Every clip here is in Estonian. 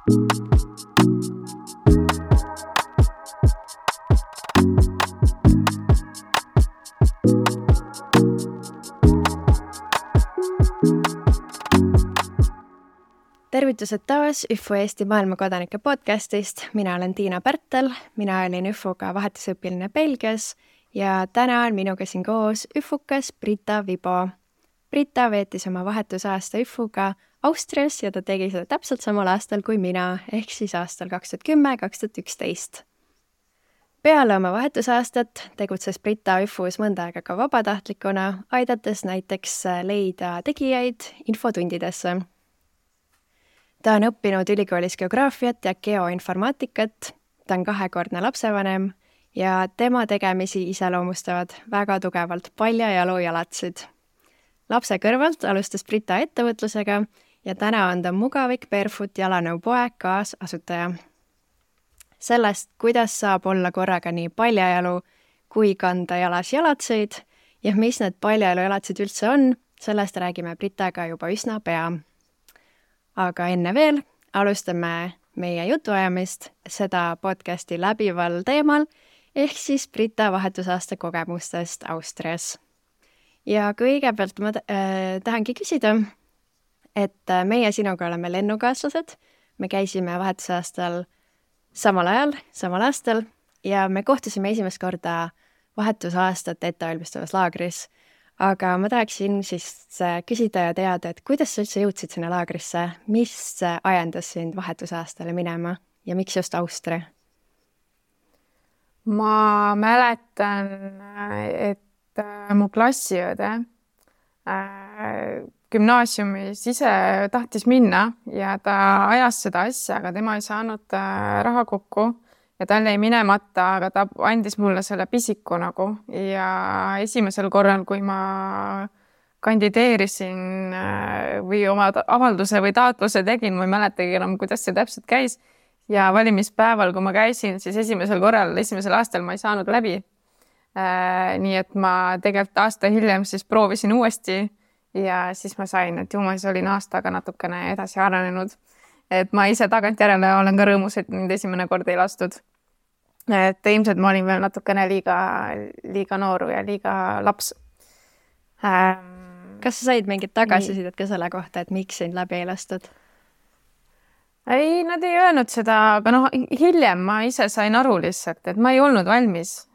Tervitused taas ÜFO Eesti maailmakodanike podcastist. Mina olen Tiina Pärtel, mina olin ÜFOga vahetusõpiline Belgias ja täna on minuga siin koos ÜFOkas Brita Vibo. Brita veetis oma vahetusaasta ÜFOga Austrias ja ta tegi seda täpselt samal aastal kui mina, ehk siis aastal 2010-2011. Peale oma vahetusaastat tegutses Brita ÜFOs mõnda aega ka vabatahtlikuna, aidates näiteks leida tegijaid infotundidesse. Ta on õppinud ülikoolis geograafiat ja geoinformaatikat, ta on 2-kordne lapsevanem ja tema tegemisi iseloomustavad väga tugevalt paljajalu jalatsid. Lapse kõrvalt alustas Brita ettevõtlusega ja täna on ta Mugavik Barefoot jalanõu poe kaasasutaja. Sellest, kuidas saab olla korraga nii paljajalu kui kanda jalas jalatseid ja mis need paljajalu jalatsid üldse on, sellest räägime Britaga juba üsna pea. Aga enne veel alustame meie jutuajamist seda podcasti läbival teemal, ehk siis Brita vahetusaasta kogemustest Austrias. Ja kõigepealt ma tahangi küsida, et meie sinuga oleme lennukaaslased, me käisime vahetusaastal samal ajal, samal aastal ja me kohtusime esimest korda vahetusaastat ettevalmistavas laagris. Aga ma tahaksin siis küsida ja teada, et kuidas sa üldse jõudsid sinna laagrisse, mis ajendas sind vahetusaastale minema ja miks just Austria? Ma mäletan, et mu klassiõde gümnaasiumis ise tahtis minna ja ta ajas seda asja, aga tema ei saanud raha kokku. Ja tal jäi minemata, aga ta andis mulle selle pisiku nagu ja esimesel korral, kui ma kandideerisin või oma avalduse või taotluse tegin, ma ei mäletagi enam, kuidas see täpselt käis. Ja valimispäeval, kui ma käisin, siis esimesel aastal ma ei saanud läbi. Nii et ma tegelikult aasta hiljem siis proovisin uuesti ja siis ma sain, et ma siis olin aastaga natukene edasi arenenud. Et ma ise tagantjärele olen ka rõõmus, et mind esimene kord ei lastud. Et ilmselt ma olin veel natukene liiga nooru ja liiga laps. Kas sa said mingit tagasisidet ka selle kohta, et miks sind läbi ei lastud? Ei, nad ei öelnud seda, aga hiljem ma ise sain aru lihtsalt, et ma ei olnud valmis.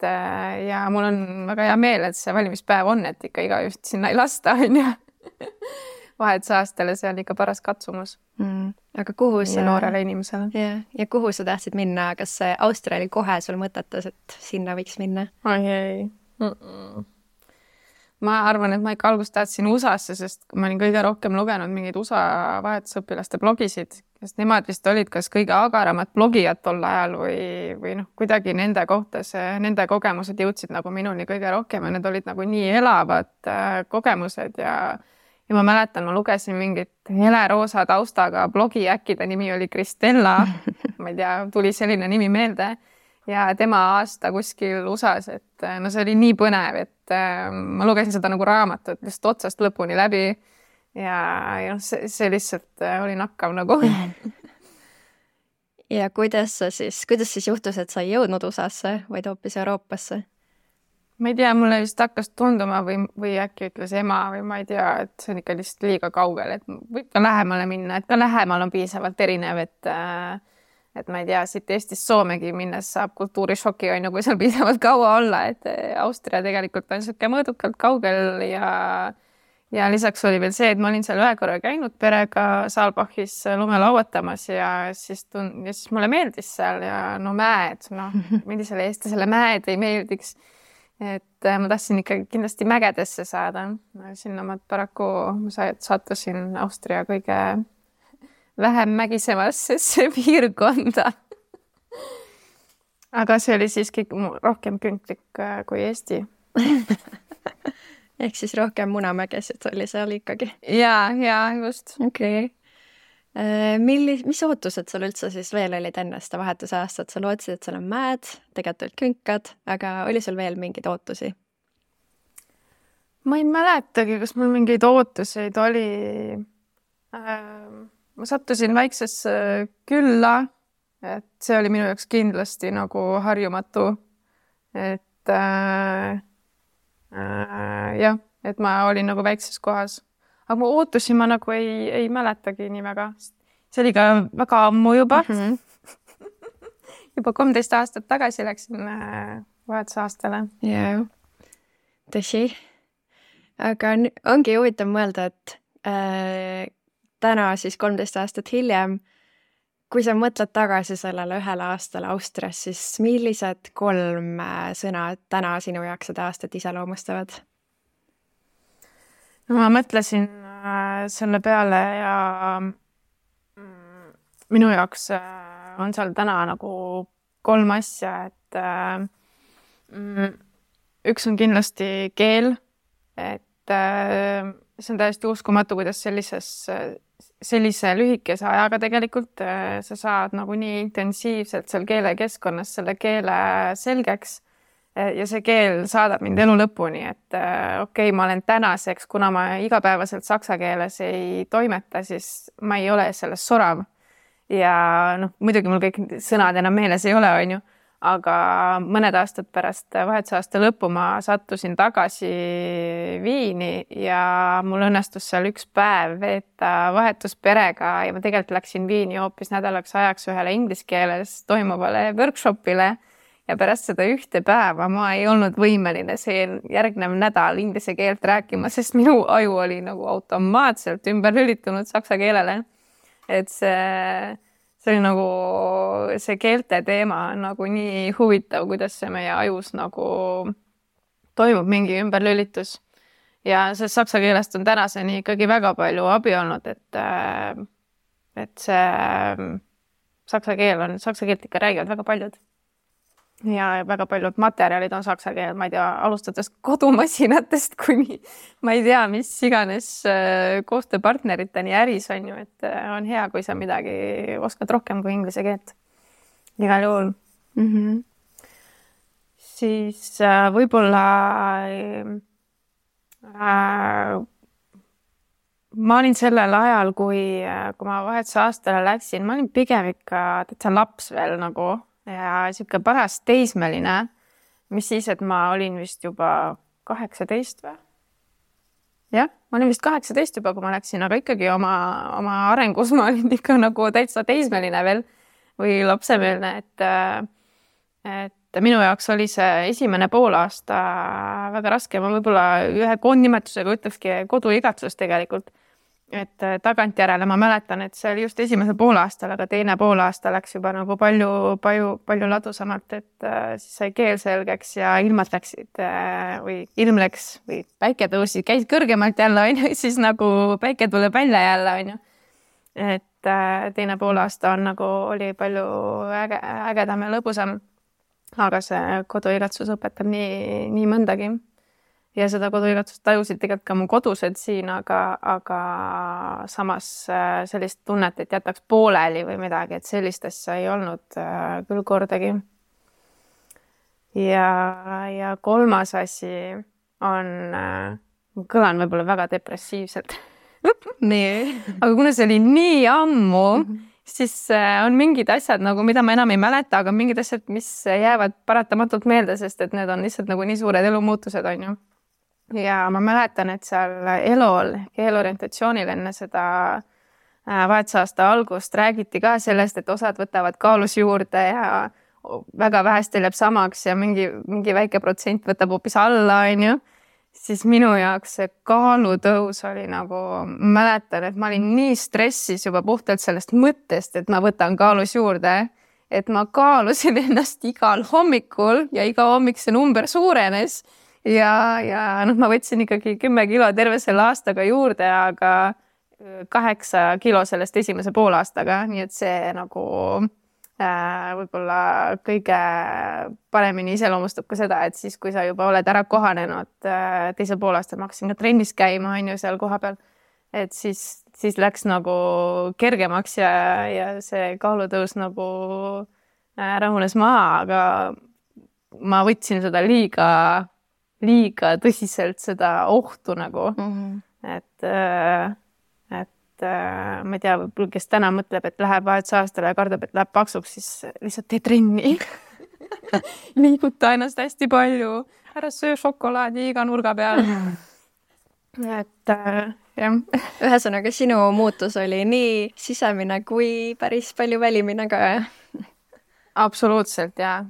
Ja mul on väga hea meel, et see valimispäev on, et ikka iga just sinna ei lasta, on ju. Vahetusaastale see oli ikka paras katsumus. Aga kuhu sa noorele inimesele? Ja kuhu sa tahtsid minna? Kas see Austria oli kohe sul mõtetas, et sinna võiks minna? Ei. Ma arvan, et ma ikka algust tahtsin USA-sse, sest ma olin kõige rohkem lugenud mingeid USA vahetusõpilaste blogisid, sest nemad vist olid kas kõige agaramad blogijad tol ajal või kuidagi nende kohta nende kogemused jõudsid nagu minuni kõige rohkem ja need olid nagu nii elavad kogemused ja ma mäletan, ma lugesin mingit heleroosa taustaga blogi, äkki ta nimi oli Kristella, ma ei tea, tuli selline nimi meelde ja tema aasta kuskil USA-s, et see oli nii põnev, et ma lugesin seda nagu raamatut just otsast lõpuni läbi ja see lihtsalt oli nakkav nagu. Ja kuidas siis juhtus, et sa ei jõudnud USA-sse, vaid hoopis Euroopasse? Ma ei tea, mulle vist hakkas tunduma või äkki ütles ema või ma ei tea, et see on ikka lihtsalt liiga kaugel, et võib ka lähemale minna, et ka lähemal on piisavalt erinev, et ma ei tea, siit Eestist Soomegi minnes saab kultuurishoki on kui seal piisavalt kaua olla, et Austria tegelikult on siuke mõõdukalt kaugel ja lisaks oli veel see, et ma olin seal ühe korra käinud perega Saalbachis lume lauatamas ja siis mulle meeldis seal ja mäed, millisele eestlasele mäed ei meeldiks. Et ma tahtsin ikka kindlasti mägedesse saada. Sinna ma paraku sattusin Austria kõige vähem mägisemasse piirkonda. Aga see oli siiski rohkem künklik kui Eesti. Ehk siis rohkem Munamägesid oli seal ikkagi. Ja just. Okei. Mis ootused sul üldse siis veel olid enne seda vahetusaastat? Sa lootsid, et seal on mäed, tegelikult olid künkad, aga oli sul veel mingeid ootusi? Ma ei mäletagi, kas mul mingeid ootuseid oli. ma sattusin väiksesse külla, et see oli minu jaoks kindlasti nagu harjumatu, et jah, et ma olin nagu väikses kohas, aga mu ootusi ma nagu ei mäletagi nii väga. See oli ka väga ammu juba. Juba 13 aastat tagasi läksin vahetusaastale. Jah, tõsi. Aga ongi huvitav mõelda, et täna siis 13 aastat hiljem, kui sa mõtled tagasi sellele 1 aastale Austrias, siis millised 3 sõna täna sinu jaoks seda aastat iseloomustavad? No, ma mõtlesin selle peale ja minu jaoks on seal täna nagu 3 asja, et üks on kindlasti keel, et see on täiesti uskumatu, kuidas sellise lühikese ajaga tegelikult sa saad nagu nii intensiivselt seal keelekeskkonnas selle keele selgeks ja see keel saadab mind elu lõpuni, et okei, ma olen tänaseks, kuna ma igapäevaselt saksa keeles ei toimeta, siis ma ei ole selles sorav. Ja muidugi mul kõik sõnad enam meeles ei ole, on ju, aga mõned aastad pärast vahetusaasta lõppu ma sattusin tagasi Viini ja mul õnnestus seal 1 päev veeta vahetusperega ja ma tegelikult läksin Viini hoopis nädalaks ajaks ühele inglise keeles toimuvale workshopile ja pärast seda 1 päeva ma ei olnud võimeline see järgnev nädal inglise keelt rääkima, sest minu aju oli nagu automaatselt ümber lülitunud saksa keelele. Et see oli nagu see keelte teema on nagu nii huvitav, kuidas see meie ajus nagu toimub mingi ümberlülitus. Ja see saksa keelest on tänaseni ikkagi väga palju abi olnud, et see saksa keelt ikka räägivad väga paljud. Ja väga paljud materjalid on saksa keel, ma ei tea, alustades kodumasinatest kuni ma ei tea, mis iganes koostööpartneriteni äris on ju, et on hea, kui sa midagi oskad rohkem kui inglise keelt. Igal juhul. Siis võib-olla ma olin sellel ajal, kui ma vahetusaastale läksin, ma olin pigem ikka täitsa laps veel nagu ja siuke paras teismeline, mis siis, et ma olin vist juba 18 või? Jah, ma olin vist 18 juba, kui ma läksin, aga ikkagi oma arengus ma olin ikka nagu täitsa teismeline veel või lapsemeelne, et minu jaoks oli see esimene poolaasta väga raske. Ma võib-olla ühe koondnimetusega ütlekski koduigatsus tegelikult. Et tagantjärele ma mäletan, et see oli just esimese poolaastal, aga teine poolaasta läks juba nagu palju ladusamalt, et siis sai keel selgeks ja ilmad läksid või ilm läks või päike tõusi, käis kõrgemalt jälle, on ju, siis nagu päike tuleb välja jälle, on ju. Et teine poolaasta on nagu oli palju ägedam ja lõbusam, aga see koduigatsus õpetab nii mõndagi. Ja seda koduigatsust tajusid tegelikult ka mu kodused siin, aga samas sellist tunnet, et jätaks pooleli või midagi, et sellist asja ei olnud küll kordagi. Ja 3. asi on, kõlan võib-olla väga depressiivselt. Aga kuna see oli nii ammu, siis on mingid asjad, nagu, mida ma enam ei mäleta, aga mingid asjad, mis jäävad paratamatult meelde, sest et need on lihtsalt nagu nii suured elumuutused, on ju. Ja ma mäletan, et seal ELO-l, keelorientatsioonil enne seda vahetusaasta algust räägiti ka sellest, et osad võtavad kaalus juurde ja väga vähestel jääb samaks ja mingi väike protsent võtab hoopis alla, on ju. Siis minu jaoks see kaalutõus oli nagu, mäletan, et ma olin nii stressis juba puhtalt sellest mõttest, et ma võtan kaalus juurde, et ma kaalusin ennast igal hommikul ja iga hommik see number suurenes. Ja ma võtsin ikkagi 10 kilo terve selle aastaga juurde, aga 8 kilo sellest esimese poolaastaga, nii et see nagu võib-olla kõige paremini iseloomustab ka seda, et siis, kui sa juba oled ära kohanenud teisel poolaastal, ma hakkasin ka trennis käima, on ju, seal koha peal, et siis läks nagu kergemaks ja see kaalutõus nagu rahunes maha, aga ma võtsin seda liiga tõsiselt seda ohtu nagu, et ma ei tea, võib-olla kes täna mõtleb, et läheb vahetusaastale ja kardab, et läheb paksuks, siis lihtsalt tee trenni. Liiguta ennast hästi palju, ära söö šokolaadi iga nurga peal. Et jah. Ühesõnaga, sinu muutus oli nii sisemine kui päris palju välimine ka. Absoluutselt, ja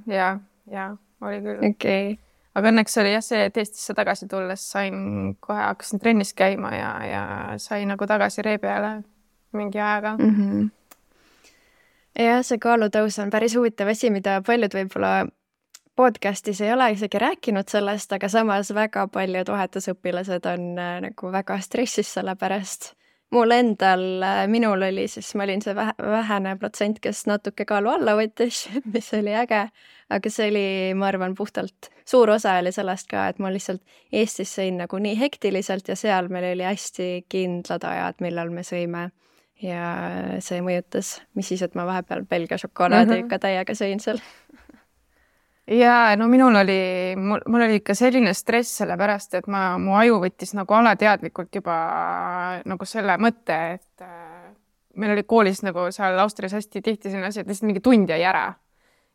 oli küll. Okay. Aga õnneks oli jah see, et Eestisse tagasi tulles hakkasin trennis käima ja sain nagu tagasi ree peale mingi ajaga. Ja see kaalutõus on päris huvitav asi, mida paljud võib-olla podcastis ei ole isegi rääkinud sellest, aga samas väga paljud vahetusõpilased on nagu väga stressis selle pärast. Minul oli siis, ma olin see vähene protsent, kes natuke kaalu alla võttis, mis oli äge, aga see oli, ma arvan, puhtalt suur osa oli sellest ka, et ma lihtsalt Eestis sõin nagu nii hektiliselt ja seal meil oli hästi kindlad ajad, millal me sõime ja see mõjutas, mis siis, et ma vahepeal Belgia šokolaadi ikka täiega sõin seal. Ja no mul oli ikka selline stress selle pärast, et mu aju võttis nagu alateadlikult juba nagu selle mõtte, et meil oli koolis nagu seal Austrias hästi tihti selline asi, et lihtsalt mingi tund jäi ära.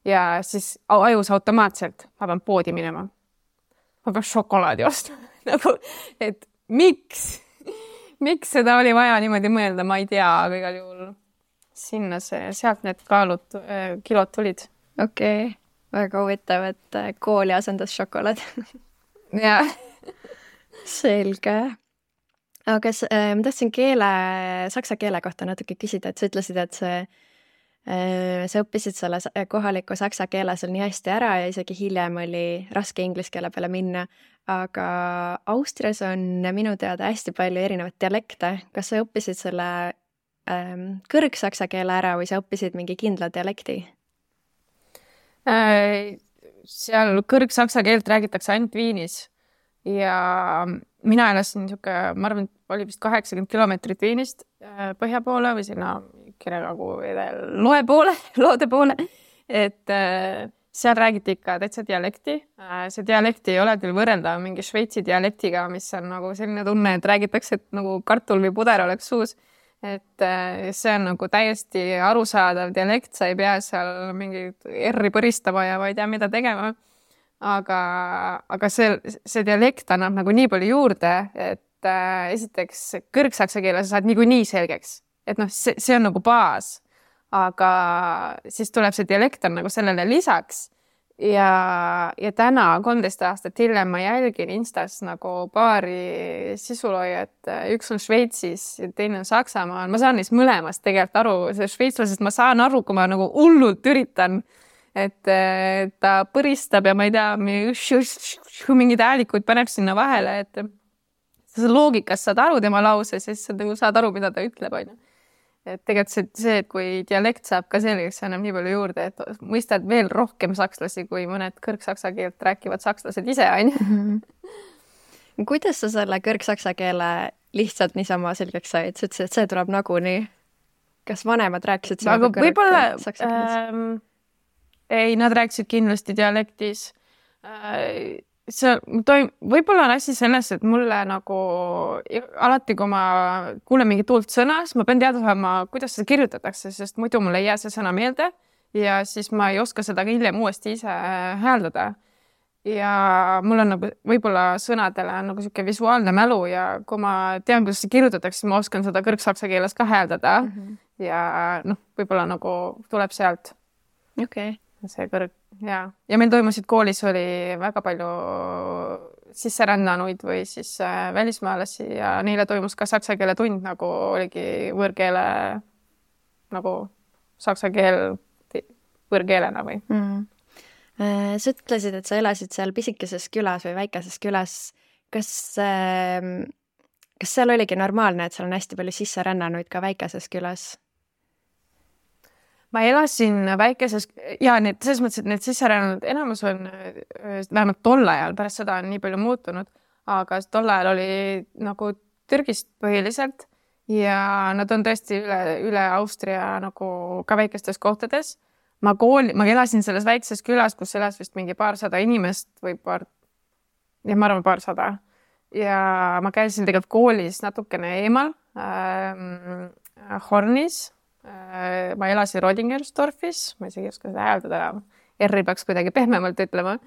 Ja siis ajus automaatselt, ma pean poodi minema. Ma pean šokolaadi ostma. Nagu, et miks seda oli vaja niimoodi mõelda, ma ei tea, aga igal juhul sealt need kilod tulid. Okei. Väga huvitav, et kooli asendas šokolaad. Ja. Selge. Aga ma tahtsin saksa keele kohta natuke küsida, et sa ütlesid, et sa õppisid selle kohaliku saksa keele seal nii hästi ära ja isegi hiljem oli raske inglise keele peale minna. Aga Austrias on minu teada hästi palju erinevat dialekte. Kas sa õppisid selle kõrgsaksa keele ära või sa õppisid mingi kindla dialekti? Seal kõrgsaksa keelt räägitakse ainult Viinis ja mina elasin ma arvan, oli vist 80 kilomeetrit Viinist põhja poole või sinna Kirekagu loode poole, et seal räägiti ikka täitsa dialekti. See dialekti ei ole küll võrreldav mingi Šveitsi dialektiga, mis on nagu selline tunne, et räägitakse, et nagu kartul või puder oleks suus. Et see on nagu täiesti arusaadav dialekt, sa ei pea seal mingi R-i põristama ja ma ei tea, mida tegema. Aga see dialekt annab nagu nii palju juurde, et esiteks kõrgsaksa keele sa saad nii selgeks. Et noh, see on nagu baas, aga siis tuleb see dialekt on nagu sellele lisaks. Ja täna 13 aastat hiljem ma jälgin Instas nagu paari sisuloojat, üks on Šveitsis ja teine on Saksamaal. Ma saan neist mõlemast tegelikult aru, see šveitslasest ma saan aru, kui ma nagu hullult üritan, et ta põristab ja ma ei tea, mingid häälikuid paneb sinna vahele, et sa loogikast saad aru tema lause, siis sa nagu saad aru, mida ta ütleb, on ju. Et tegelikult see, et kui dialekt saab ka selgeks, see annab nii palju juurde, et mõistad veel rohkem sakslasi, kui mõned kõrgsaksa keelt rääkivad sakslased ise, on ju. Kuidas sa selle kõrgsaksa keele lihtsalt niisama selgeks said? Sa ütlesid, et see tuleb nagunii. Kas vanemad rääkisid sinuga kõrgsaksa keeles? Ei, nad rääkisid kindlasti dialektis. Võib-olla on asi selles, et mulle nagu alati, kui ma kuulen mingi tuult sõna, siis ma pean teada saama, kuidas seda kirjutatakse, sest muidu mul ei jää see sõna meelde ja siis ma ei oska seda hiljem uuesti ise hääldada. Ja mul on nagu võib-olla sõnadele on nagu selline visuaalne mälu ja kui ma tean, kuidas see kirjutatakse, siis ma oskan seda kõrgsaksa keeles ka hääldada ja võib-olla nagu tuleb sealt. Okei. See ja meil toimusid koolis oli väga palju sisserännanuid või siis välismaalasi ja neile toimus ka saksa keele tund, nagu oligi võõrkeele nagu saksa keel võõrkeelena või. Sa ütlesid, et sa elasid seal pisikeses külas või väikeses külas. Kas seal oligi normaalne, et seal on hästi palju sisserännanuid ka väikeses külas? Ma elasin väikeses ja selles mõttes, et need sisserännanud enamus on vähemalt tol ajal, pärast seda on nii palju muutunud, aga tol ajal oli nagu Türgist põhiliselt ja nad on tõesti üle Austria nagu ka väikestes kohtades. Ma elasin selles väikses külas, kus elas vist mingi paarsada inimest või ma arvan paarsada. Ja ma käisin tegelikult koolis natukene eemal Hornis. Ma elasin Rodingersdorfis, ma isegi ei oska seda hääldada enam. R-i peaks kuidagi pehmemalt ütlema.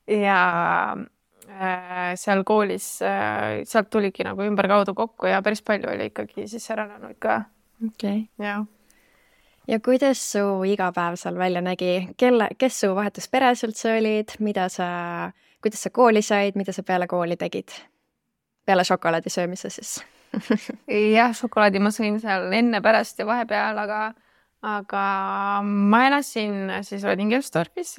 Ja seal koolis, sealt tuligi nagu ümberkaudu kokku ja päris palju oli ikkagi siis äranenuid ka. Okay. Ja kuidas su igapäev seal välja nägi? Kes su vahetusperes üldse olid? Kuidas sa kooli said? Mida sa peale kooli tegid? Peale šokolaadi söömise siis? Jah, šokolaadi ma sõin seal enne, pärast ja vahepeal, aga ma elasin siis Rodingersdorfis,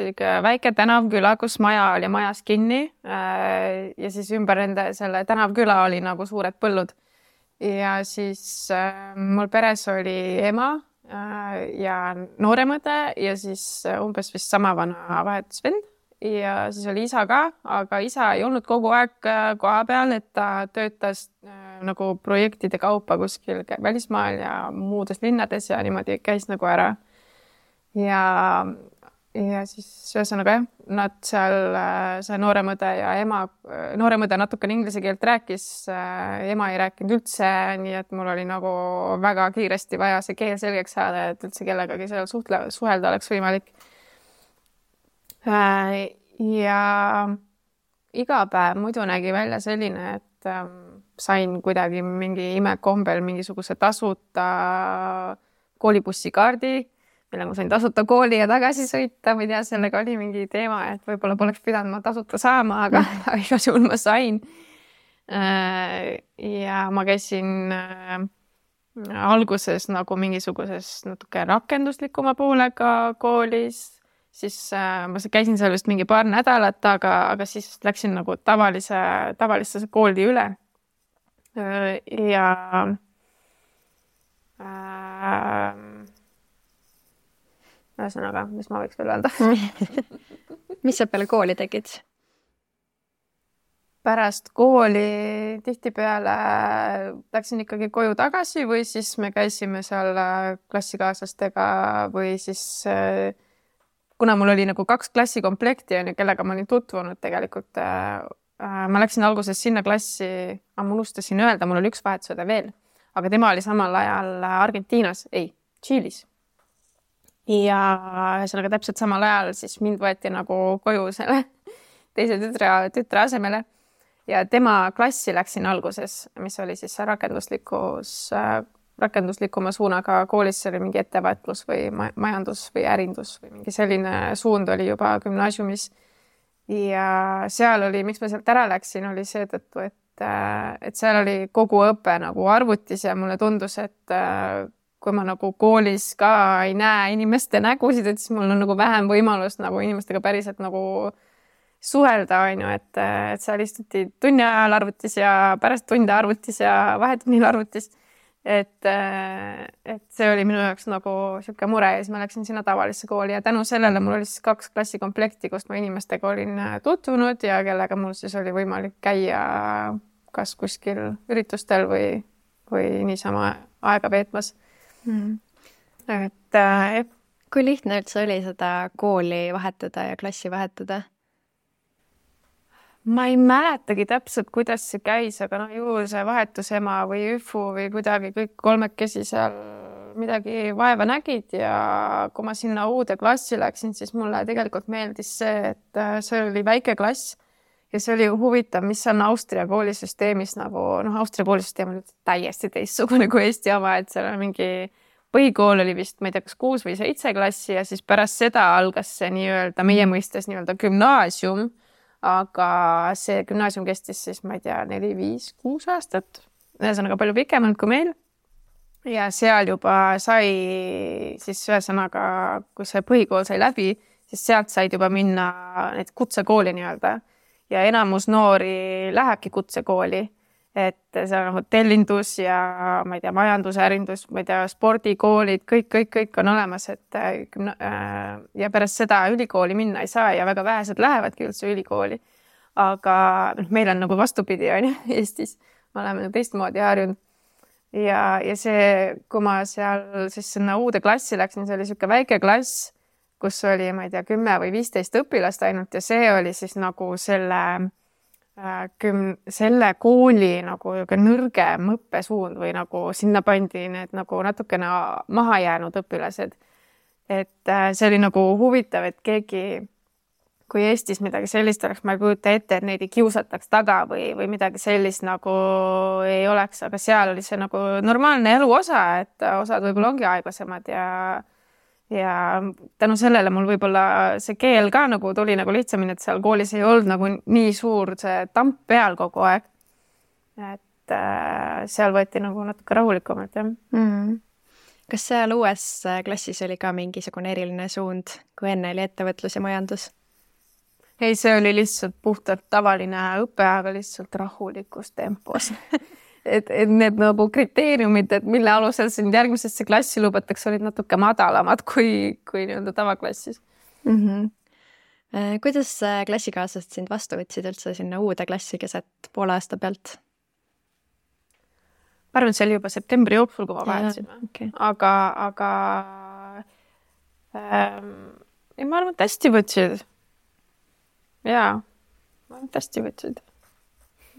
väike tänavküla, kus maja oli majas kinni ja siis ümber selle tänavküla oli nagu suured põllud. Ja siis mul peres oli ema ja nooremõde ja siis umbes vist sama vana vahetusvend ja siis oli isa ka, aga isa ei olnud kogu aeg koha peal, et ta töötas nagu projektide kaupa kuskil välismaal ja muudes linnades ja niimoodi käis nagu ära. Ja siis ühesõnaga jah, nad seal, see nooremõde ja ema, nooremõde natukene inglise keelt rääkis, ema ei rääkinud üldse, nii et mul oli nagu väga kiiresti vaja see keel selgeks saada, et üldse kellegagi seal suhelda oleks võimalik. Ja iga päev muidu nägi välja selline, et sain kuidagi mingi imekombel mingisuguse tasuta koolibussikaardi, millega ma sain tasuta kooli ja tagasi sõita. Ma ei tea, sellega oli mingi teema, et võib-olla poleks pidanud ma tasuta saama, aga igal juhul ma sain. Ja ma käisin alguses nagu mingisuguses natuke rakenduslikuma poolega koolis. Siis ma käisin seal vist mingi paar nädalat, aga siis läksin nagu tavalisse kooli üle. Ja ühesõnaga, mis ma võiks veel öelda? Mis sa peale kooli tegid? Pärast kooli tihtipeale läksin ikkagi koju tagasi või siis me käisime seal klassikaaslastega või siis kuna mul oli nagu 2 klassikomplekti, kellega ma olin tutvunud tegelikult, ma läksin alguses sinna klassi, ma unustasin öelda, mul oli 1 vahetusõde veel, aga tema oli samal ajal Argentiinas, Tšiilis. Ja ühesõnaga täpselt samal ajal siis mind võeti nagu koju selle teise tütre asemele ja tema klassi läksin alguses, mis oli siis rakenduslikuma suunaga koolis, see oli mingi ettevõtlus või majandus või ärindus või mingi selline suund oli juba gümnaasiumis. Ja seal oli, miks ma sealt ära läksin, oli seetõttu, et seal oli kogu õpe nagu arvutis ja mulle tundus, et kui ma nagu koolis ka ei näe inimeste nägusid, et siis mul on nagu vähem võimalust nagu inimestega päriselt nagu suhelda, et seal istuti tunni ajal arvutis ja pärast tunde arvutis ja vahetunnil arvutis. Et see oli minu jaoks nagu siuke mure ja siis ma läksin sinna tavalisse kooli ja tänu sellele mul oli siis 2 klassikomplekti, kust ma inimestega olin tutvunud ja kellega mul siis oli võimalik käia kas kuskil üritustel või niisama aega veetmas. Kui lihtne üldse oli seda kooli vahetada ja klassi vahetada? Ma ei mäletagi täpselt, kuidas see käis, aga ju see vahetusema või üfu või kuidagi kõik 3 seal midagi vaeva nägid ja kui ma sinna uude klassi läksin, siis mulle tegelikult meeldis see, et see oli väike klass ja see oli huvitav, mis on Austria koolisüsteemis nagu, Austria koolisüsteem on täiesti teistsugune kui Eesti oma, et seal on mingi põhikool oli vist, ma ei tea, kas 6 või 7 klassi ja siis pärast seda algas see nii-öelda meie mõistes nii-öelda gümnaasium. Aga see gümnaasium kestis siis, ma ei tea, 4, 5, 6 aastat. Ühesõnaga palju pikemalt kui meil. Ja seal juba sai siis ühesõnaga, kui see põhikool sai läbi, siis sealt said juba minna need kutsekooli nii-öelda. Ja enamus noori lähebki kutsekooli. Et see on hotellindus ja ma ei tea, majandusärindus, ma ei tea, spordikoolid, kõik on olemas, et ja pärast seda ülikooli minna ei saa ja väga vähesed lähevadki üldse ülikooli. Aga meil on nagu vastupidi on Eestis, me oleme teistmoodi harjunud. Ja see, kui ma seal siis sinna uude klassi läksin, see oli siuke väike klass, kus oli, ma ei tea, 10 või 15 õpilast ainult ja see oli siis nagu selle selle kooli nagu nõrgem õppesuund või nagu sinna pandi need nagu natukene maha jäänud õpilased. Et see oli nagu huvitav, et keegi, kui Eestis midagi sellist oleks, ma ei kujuta ette, et neid ei kiusataks taga või midagi sellist nagu ei oleks, aga seal oli see nagu normaalne elu osa, et osad võib-olla ongi aeglasemad ja tänu sellele mul võib-olla see keel ka nagu tuli nagu lihtsamini, et seal koolis ei olnud nagu nii suur see tamp peal kogu aeg. Et seal võeti nagu natuke rahulikumalt, jah. Kas seal uues klassis oli ka mingisugune eriline suund, kui enne oli ettevõtlus ja majandus? Ei, see oli lihtsalt puhtalt tavaline õpe, aga lihtsalt rahulikus tempos. et need nagu kriteeriumid, et mille alusel sind järgmisesse klassi lubatakse, olid natuke madalamad kui nii-öelda tavaklassis. Kuidas klassikaaslased sind vastu võtsid üldse sinna uude klassi keset poole aasta pealt? Ma arvan, et see oli juba septembri jooksul, kui ma vahetasime. Okay. Aga ma arvan, et hästi võtsid. Jaa, ma arvan, et hästi võtsid.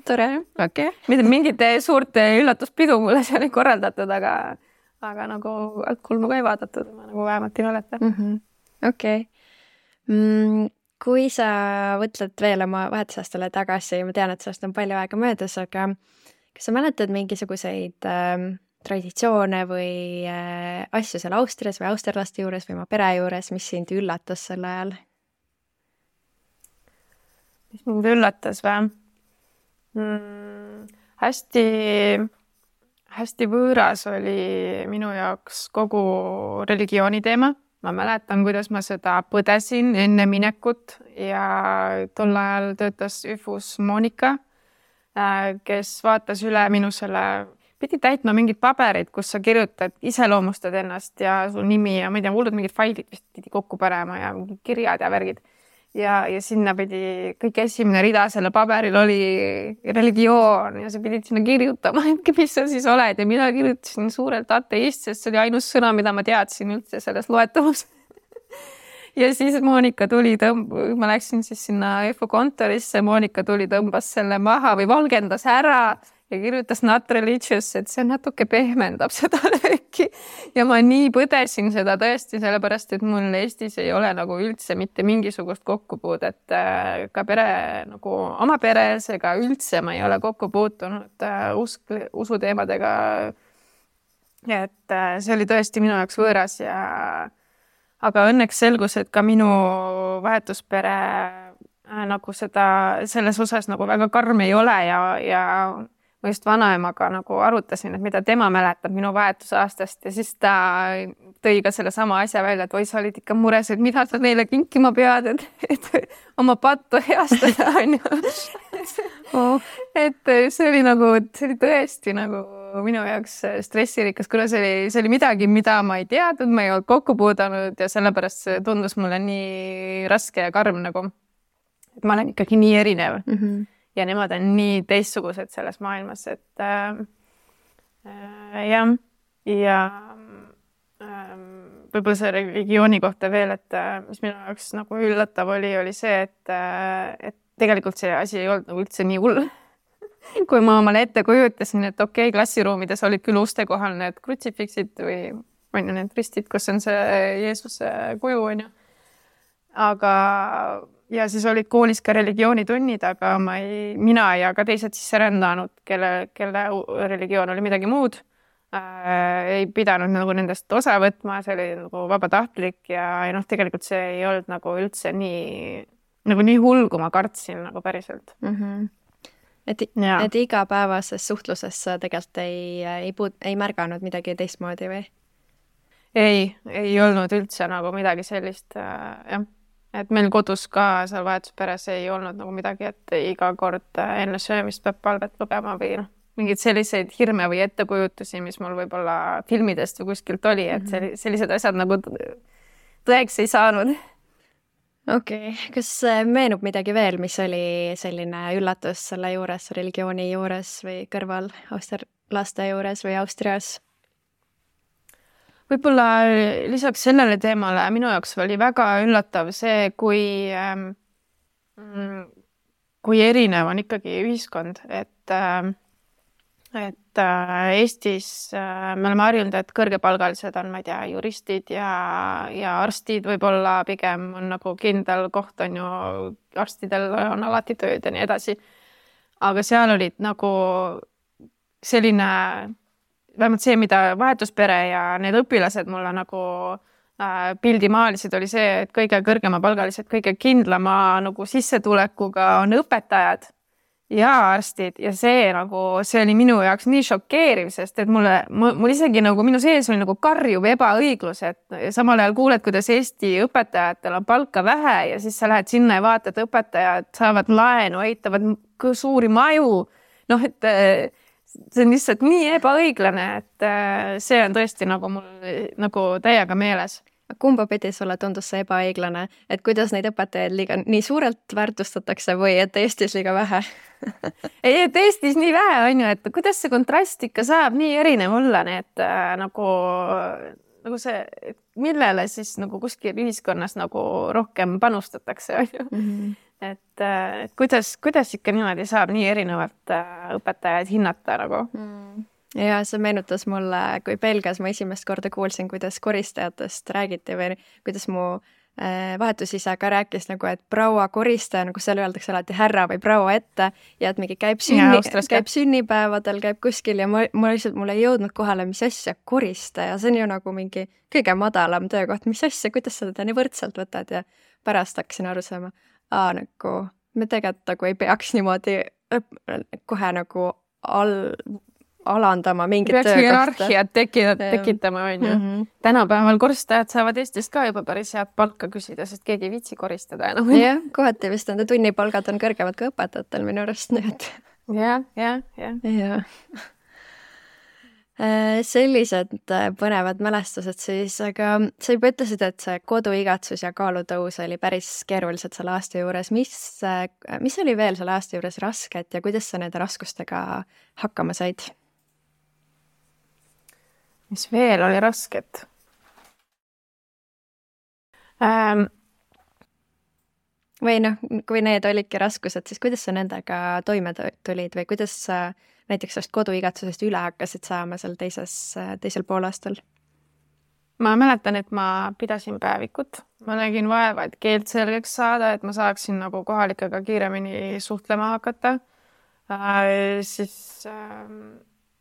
Tore. Okay. Mingid suurte üllatuspidu mulle seal ei korraldatud, aga nagu altkulmu ka ei vaadatud, ma nagu vähemalt ei mäleta. Okei. Kui sa võtled veel oma vahetusaastale tagasi, ma tean, et sellest on palju aega möödas, aga kas sa mäletad mingisuguseid traditsioone või asju seal Austrias või austerlaste juures või oma pere juures, mis sind üllatas sel ajal? Mis mind üllatas või? Hästi võõras oli minu jaoks kogu religiooni teema. Ma mäletan, kuidas ma seda põdesin enne minekut ja tol ajal töötas üfus Monika, kes vaatas üle minu pidi täitma mingid paberid, kus sa kirjutad, iseloomustad ennast ja su nimi ja ma ei tea, hullud mingid failid vist pidi kokku panema ja mingid kirjad ja värgid. Ja sinna pidi kõik esimene rida selle paberil oli religioon ja sa pidid sinna kirjutama, mis sa siis oled ja mina kirjutasin suurelt ateist, sest see oli ainus sõna, mida ma teadsin üldse selles loetavus. Ja siis Monika tuli, ma läksin siis sinna EFO kontorisse, Monika tuli, tõmbas selle maha või valgendas ära ja kirjutas not religious, et see natuke pehmendab seda lööki. Ja ma nii põdesin seda tõesti, sellepärast, et mul Eestis ei ole nagu üldse mitte mingisugust kokkupuudet ka nagu oma peres ega üldse ma ei ole kokku puutunud usuteemadega. Et see oli tõesti minu jaoks võõras aga õnneks selgus, et ka minu vahetuspere nagu selles osas nagu väga karm ei ole ja ma just vanaemaga nagu arutasin, et mida tema mäletab minu vahetusaastast ja siis ta tõi ka selle sama asja välja, et oi, sa olid ikka mures, et mida sa neile kinkima pead, et oma pattu heastada, on ju. Et see oli tõesti nagu minu jaoks stressirikas, kuna see oli midagi, mida ma ei teadnud, ma ei olnud kokku puudanud ja sellepärast see tundus mulle nii raske ja karm nagu, et ma olen ikkagi nii erinev ja nemad on nii teistsugused selles maailmas, et jah, ja võib-olla see religiooni kohta veel, et mis minu jaoks nagu üllatav oli see, et tegelikult see asi ei olnud nagu üldse nii hull. Kui ma omale ette kujutasin, et okei, klassiruumides olid küll uste kohal need krutsifiksid või on ju need ristid, kus on see Jeesuse kuju, on ju. Aga ja siis olid koolis ka religioonitunnid, aga mina ja ka teised sisserändanud, kelle religioon oli midagi muud, ei pidanud nagu nendest osa võtma, see oli nagu vabatahtlik ja tegelikult see ei olnud nagu üldse nii hull, kui ma kartsin nagu päriselt. Et igapäevases suhtluses sa tegelikult ei märganud midagi teistmoodi või? Ei olnud üldse nagu midagi sellist, jah. Et meil kodus ka seal vahetusperes ei olnud nagu midagi, et iga kord enne söömist peab palvet lugema või mingid selliseid hirme või ettekujutusi, mis mul võib-olla filmidest või kuskilt oli, et sellised asjad nagu tõeks ei saanud. Okei. Kas meenub midagi veel, mis oli selline üllatus selle juures, religiooni juures või kõrval austerlaste juures või Austrias? Võib-olla lisaks sellele teemale minu jaoks oli väga üllatav see, kui erinev on ikkagi ühiskond, et Eestis me oleme harjunud, et kõrgepalgalised on, ma ei tea, juristid ja arstid võib-olla pigem on nagu kindel koht on ju, arstidel on alati tööd ja nii edasi. Aga seal olid nagu selline, vähemalt see, mida vahetuspere ja need õpilased mulle nagu pildi maalisid, oli see, et kõige kõrgema palgalised, kõige kindlama nagu sissetulekuga on õpetajad ja arstid ja see oli minu jaoks nii šokeeriv, sest et mul isegi nagu minu sees oli nagu karjuv ebaõiglus, et samal ajal kuuled, kuidas Eesti õpetajatel on palka vähe ja siis sa lähed sinna ja vaatad, õpetajad saavad laenu, ehitavad suuri maju. Noh, et see on lihtsalt nii ebaõiglane, et see on tõesti nagu mul nagu täiega meeles. Kumba pidi sulle tundus see ebaõiglane, et kuidas neid õpetajaid nii suurelt väärtustatakse või et Eestis liiga vähe? Ei, et Eestis nii vähe on ju, et kuidas see kontrast ikka saab nii erinev olla, et nagu see, millele siis nagu kuskil ühiskonnas nagu rohkem panustatakse, on ju. Et kuidas ikka niimoodi saab nii erinevalt õpetajaid hinnata nagu? Ja see meenutas mulle, kui Belgias ma esimest korda kuulsin, kuidas koristajatest räägiti või kuidas mu vahetusisa ka rääkis nagu, et proua koristaja, nagu seal öeldakse alati härra või proua ette ja et mingi käib sünnipäevadel, käib kuskil ja mul ei jõudnud kohale, mis asja koristaja, see on ju nagu mingi kõige madalam töökoht, mis asja, kuidas sa teda nii võrdselt võtad ja pärast hakkasin aru saama, nagu me tegelikult nagu ei peaks niimoodi kohe nagu alandama mingit töökohta. Hierarhiat tekitama, on ju. Tänapäeval koristajad saavad Eestist ka juba päris head palka küsida, sest keegi ei viitsi koristada enam. Jah, kohati vist nende tunnipalgad on kõrgemad ka õpetajatel minu arust. Ja. Sellised põnevad mälestused siis, aga sa juba ütlesid, et see koduigatsus ja kaalutõus oli päris keerulised selle aasta juures. Mis oli veel selle aasta juures rasket ja kuidas sa nende raskustega hakkama said? Mis veel oli rasket? Või noh, kui need olidki raskused, siis kuidas sa nendega toime tulid või kuidas sa näiteks sellest koduigatsusest üle hakkasid saama seal teisel poolaastal? Ma mäletan, et ma pidasin päevikut. Ma nägin vaeva, et keelt selgeks saada, et ma saaksin nagu kohalikega kiiremini suhtlema hakata. Siis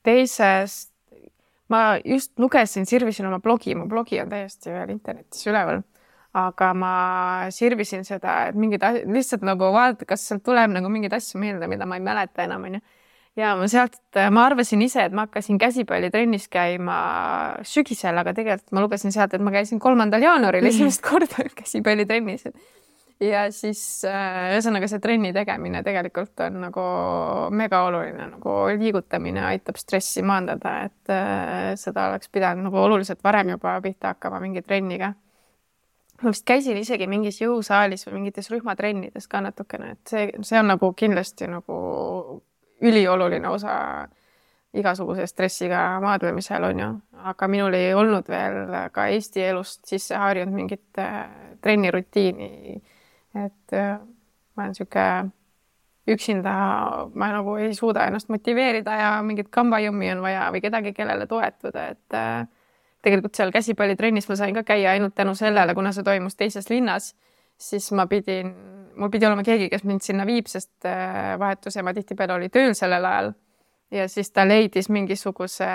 teisest ma just lugesin, sirvisin oma blogi, mu blogi on täiesti veel internetis üleval, aga ma sirvisin seda, et lihtsalt nagu vaadata, kas sealt tuleb nagu mingid asju meelde, mida ma ei mäleta enam, on ju. Ja ma arvasin ise, et ma hakkasin käsipallitrennis käima sügisel, aga tegelikult ma lugesin sealt, et ma käisin 3. jaanuaril esimest korda käsipallitrennis. Ja siis ühesõnaga see trenni tegemine tegelikult on nagu mega oluline, nagu liigutamine aitab stressi maandada, et seda oleks pidanud nagu oluliselt varem juba pihta hakkama mingi trenniga. Ma vist käisin isegi mingis jõusaalis või mingites rühmatrennides ka natukene, et see on nagu kindlasti nagu ülioluline osa igasuguse stressiga maadlemisel, on ju. Aga minul ei olnud veel ka Eesti elust sisse harjunud mingit trennirutiini. Et ma olen siuke üksinda, ma nagu ei suuda ennast motiveerida ja mingit kambajummi on vaja või kedagi, kellele toetuda. Et tegelikult seal käsipallitrennis ma sain ka käia ainult tänu sellele, kuna see toimus teises linnas, siis mul pidi olema keegi, kes mind sinna viib, sest vahetusema tihtipeale oli tööl sellel ajal. Ja siis ta leidis mingisuguse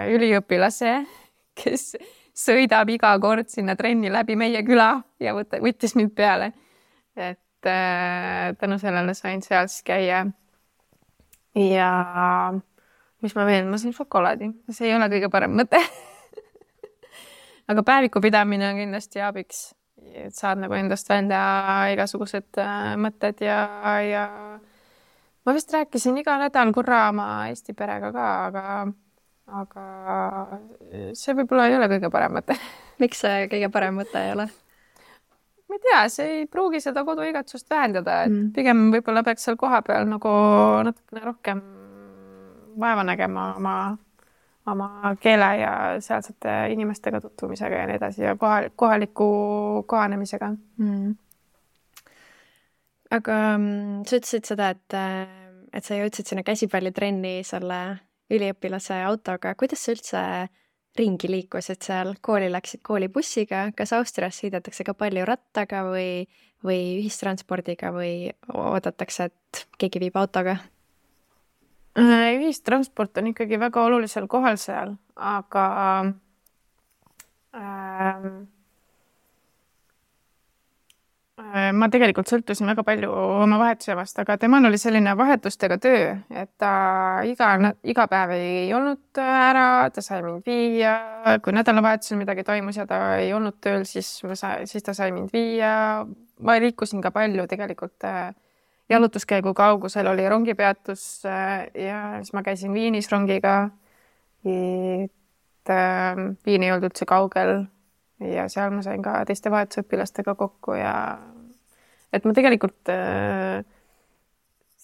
üliõpilase, kes sõidab iga kord sinna trenni läbi meie küla ja võttis mind peale. Et tänu sellele sain seal siis käia. Ja mis ma veel, ma sain šokolaadi. See ei ole kõige parem mõte. Aga päeviku pidamine on kindlasti abiks. Et saad nagu endast välja igasugused mõtted ja ma vist rääkisin iga nädal korra oma Eesti perega ka, aga see võib-olla ei ole kõige parem mõte. Miks see kõige parem mõte ei ole? Ma ei tea, see ei pruugi seda koduigatsust vähendada, et pigem võib-olla peaks seal koha peal nagu natukene rohkem vaeva nägema oma keele ja sealsete inimestega tutvumisega ja nii edasi ja kohaliku kohanemisega. aga sa ütlesid seda, et sa jõudsid sinna käsipallitrenni selle üliõpilase autoga. Kuidas sa üldse ringi liikusid seal? Kooli läksid koolibussiga? Kas Austrias sõidetakse ka palju rattaga või ühistranspordiga või oodatakse, et keegi viib autoga? Ühistransport on ikkagi väga olulisel kohal seal, aga ma tegelikult sõltusin väga palju oma vahetusevast, aga temal oli selline vahetustega töö, et ta iga päev ei olnud ära, ta sai mind viia, kui nädalavahetusel midagi toimus ja ta ei olnud tööl, siis ta sai mind viia. Ma liikusin ka palju tegelikult jalutuskäigu kaugusel, oli rongipeatus ja siis ma käisin Viinis rongiga. Viin ei olnud üldse kaugel ja seal ma sain ka teiste vahetusõpilastega kokku ja et ma tegelikult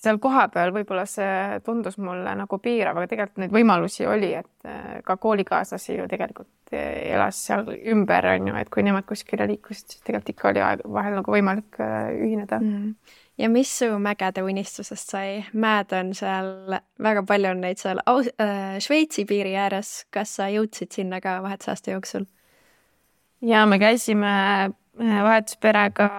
seal kohapeal võib-olla see tundus mulle nagu piirav, aga tegelikult neid võimalusi oli, et ka koolikaaslasi ju tegelikult elas seal ümber, on ju, et kui nemad kuskile liikusid, siis tegelikult ikka oli vahel nagu võimalik ühineda. Ja mis su mägede unistusest sai? Mäed on seal, väga palju on neid seal Šveitsi piiri ääres. Kas sa jõudsid sinna ka vahetusaasta jooksul? Ja me käisime vahetusperega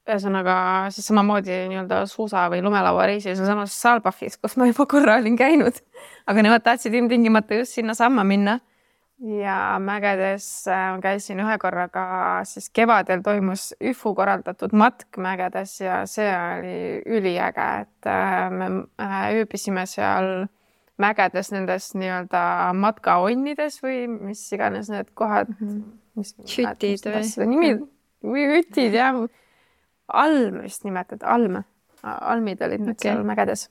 ühesõnaga siis samamoodi nii-öelda suusa või lumelauareisil samas Saalbachis, kus ma juba korra olin käinud, aga nemad tahtsid ilmtingimata just sinna samma minna ja mägedes käisin ühe korraga, siis kevadel toimus ÜFU korraldatud matk mägedes ja see oli üliäge, et me ööbisime seal mägedes nendes nii-öelda matkaonnides või mis iganes need kohad, Hütid või hütid ja alm vist nimetad, almid olid need seal mägedes.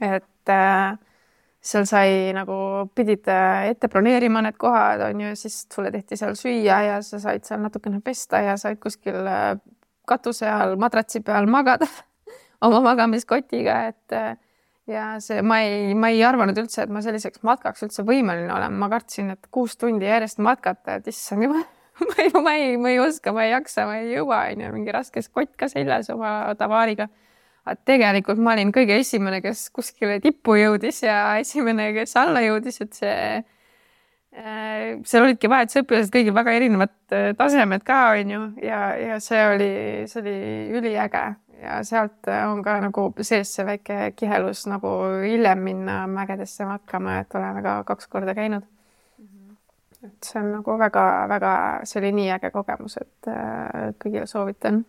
Et seal sai nagu, pidid ette broneerima need kohad, on ju, siis sulle tehti seal süüa ja sa said seal natukene pesta ja said kuskil katuse all, madratsi peal magada oma magamiskotiga, et ja see, ma ei arvanud üldse, et ma selliseks matkaks üldse võimeline olen. Ma kartsin, et 6 tundi järjest matkata, et issand juba, ma ei oska, ma ei jaksa, ma ei jõua, mingi raskes kott ka seljas oma tavaariga. Tegelikult ma olin kõige esimene, kes kuskile tippu jõudis ja esimene, kes alla jõudis, et seal olidki vahetusõpilased kõigil väga erinevad tasemed ka, on ju, ja see oli üliäge. Ja sealt on ka nagu sees see väike kihelus nagu hiljem minna mägedesse matkama, et oleme ka 2 korda käinud. Et see on nagu väga, see oli nii äge kogemus, et kõigile soovitan.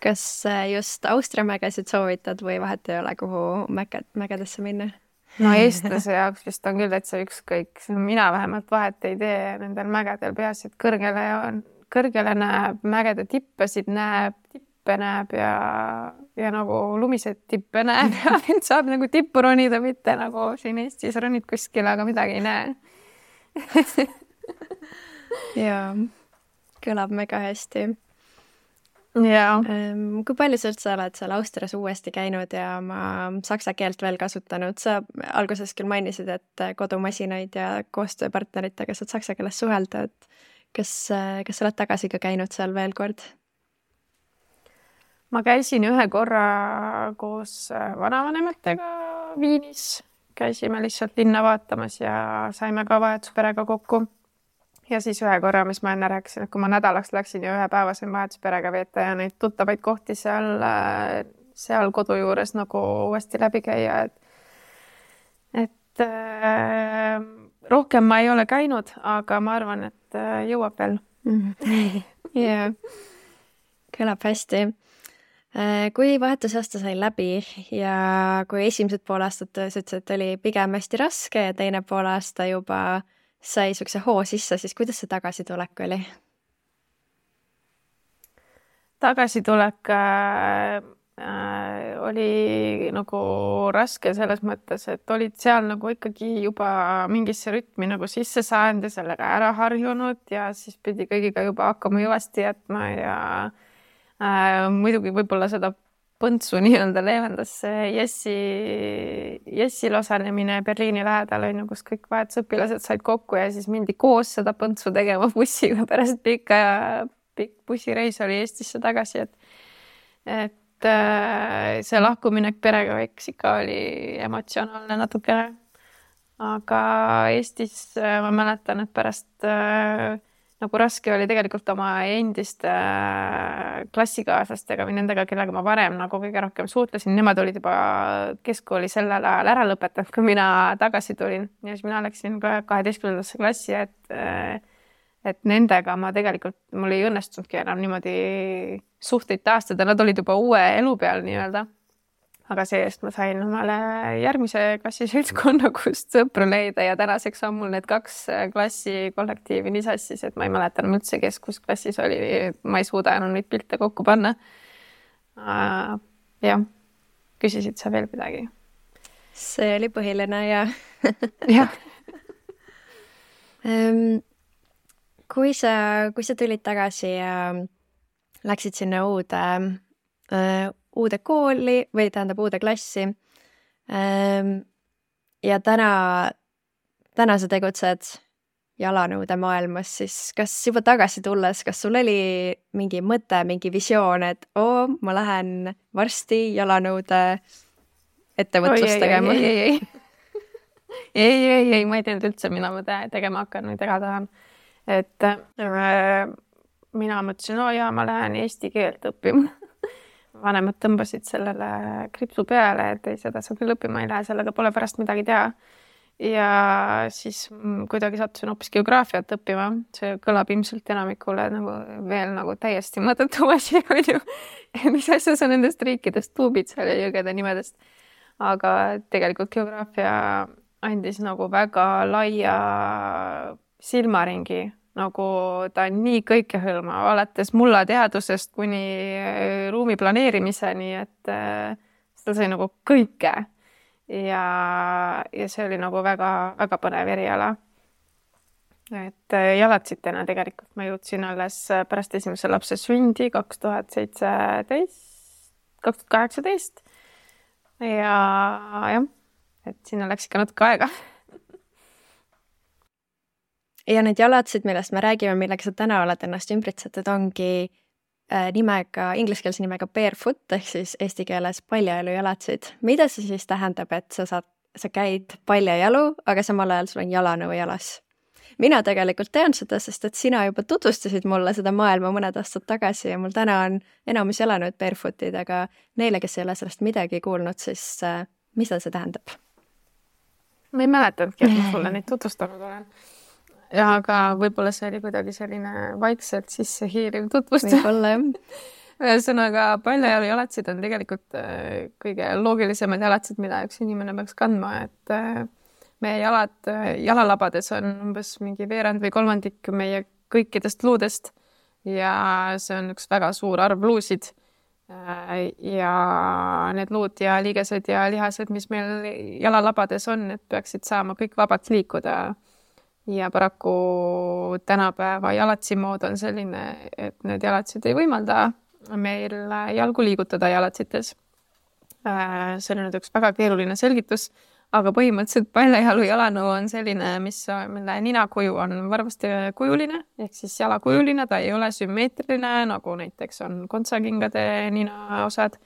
Kas just Austria mägesid soovitad või vahet ei ole, kuhu mägedesse minna? No eestlase jaoks vist on küll täitsa ükskõik. Mina vähemalt vahet ei tee nendel mägedel, peaasi, et kõrgele näeb, mägede tippesid näeb, tippe näeb ja nagu lumised tippe näeb ja saab nagu tippu ronida, mitte nagu siin Eestis ronid kuskil, aga midagi ei näe. Jaa, kõlab mega hästi. Ja. Kui palju sa üldse oled seal Austrias uuesti käinud ja oma saksa keelt veel kasutanud? Sa alguses küll mainisid, et kodumasinaid ja koostööpartneritega saad saksa keeles suhelda, et kas sa oled tagasi ka käinud seal veel kord? Ma käisin ühe korra koos vanavanematega Viinis. Käisime lihtsalt linna vaatamas ja saime ka vahetusperega kokku. Ja siis ühe korra, mis ma enne rääkisin, et kui ma nädalaks läksin ja ühe päeva sain vahetusperega veeta ja neid tuttavaid kohti seal kodu juures nagu uuesti läbi käia. Et rohkem ma ei ole käinud, aga ma arvan, et jõuab veel. Jaa, kõlab hästi. Kui vahetusaasta sai läbi ja kui esimesed pool aastat sa ütlesid, et oli pigem hästi raske ja teine pool aasta juba sai sukse hoo sisse, siis kuidas see tagasitulek oli? Tagasitulek oli nagu raske selles mõttes, et olid seal nagu ikkagi juba mingisse rütmi nagu sisse saanud ja sellega ära harjunud ja siis pidi kõigiga juba hakkama jõvasti jätma ja muidugi võib-olla seda põntsu nii-öelda leevendas Jessil osalemine Berliini lähedal, kus kõik vahetusõpilased said kokku ja siis mindi koos seda põntsu tegema bussiga pärast pikk bussireis oli Eestisse tagasi, et see lahkuminek perega eks ikka oli emotsionaalne natukene. Aga Eestis ma mäletan, et pärast nagu raske oli tegelikult oma endiste klassikaaslastega või nendega, kellega ma varem nagu kõige rohkem suhtlesin. Nemad olid juba keskkooli sellel ajal ära lõpetanud, kui mina tagasi tulin. Ja siis mina läksin 12. klassi, et nendega ma tegelikult, mul ei õnnestunudki enam niimoodi suhteid taastada. Nad olid juba uue elu peal nii-öelda. Aga seest ma sain omale järgmise klassi seltskonna, kust sõpru leida ja tänaseks on mul need 2 klassi kollektiivi nii sassis, et ma ei mäleta enam üldse, kes kus klassis oli. Ma ei suuda enam neid pilte kokku panna. Jah, küsisid sa veel midagi? See oli põhiline ja jah. Kui sa tulid tagasi ja läksid sinna uude kooli või tähendab uude klassi ja täna sa tegutsed jalanõude maailmas, siis kas juba tagasi tulles, kas sul oli mingi mõte, mingi visioon, et ma lähen varsti jalanõude ettevõtlust tegema? Ei, ma ei teanud üldse, mina ma tegema hakkan või tega tahan. Et mina mõtlesin, ma lähen eesti keelt õppima. Vanemad tõmbasid sellele kripsu peale, et ei, seda sa küll õppima ei lähe, sellega pole pärast midagi teha. Ja siis kuidagi sattusin hoopis geograafiat õppima. See kõlab ilmselt enamikule veel täiesti mõttetu asi, on ju. Mis asja sa nendest riikidest tuubid seal ja jõgede nimedest. Aga tegelikult geograafia andis väga laia silmaringi. Ta on nii kõikehõlmav, alates mullateadusest kuni ruumi planeerimiseni, et seda sai kõike. Ja see oli väga, väga põnev eriala. Et jalatsitena tegelikult ma jõudsin alles pärast esimese lapse sündi 2018. Ja jah, et sinna läks ikka natuke aega. Ja need jalatsid, millest me räägime, millega sa täna oled ennast ümbritsetud, ongi ingliskeelse nimega barefoot, ehk siis eesti keeles paljajalu jalatsid. Mida see siis tähendab, et sa käid paljajalu, aga samal ajal sul on jalanõu jalas? Mina tegelikult tean seda, sest et sina juba tutvustasid mulle seda maailma mõned aastad tagasi ja mul täna on enamus jalanõud barefootid, aga neile, kes ei ole sellest midagi kuulnud, siis mida see tähendab? Ma ei mäletanudki, et ma sulle neid tutvustanud olen. Ja aga võib-olla see oli kuidagi selline vaikselt sisse hiiriv tutvustus. Võib-olla jah. Ühesõnaga, paljajalu jalatsid on tegelikult kõige loogilisemad jalatsid, mida üks inimene peaks kandma, et meie jalalabades on umbes mingi veerand või kolmandik meie kõikidest luudest ja see on üks väga suur arv luusid. Ja need luud ja liigesed ja lihased, mis meil jalalabades on, need peaksid saama kõik vabalt liikuda. Ja paraku tänapäeva jalatsimood on selline, et need jalatsid ei võimalda meil jalgu liigutada jalatsites. See on nüüd üks väga keeruline selgitus, aga põhimõtteliselt paljajalu jalanõu on selline, mille ninakuju on varvasti kujuline, ehk siis jalakujuline, ta ei ole sümmeetriline, nagu näiteks on kontsakingade ninaosad.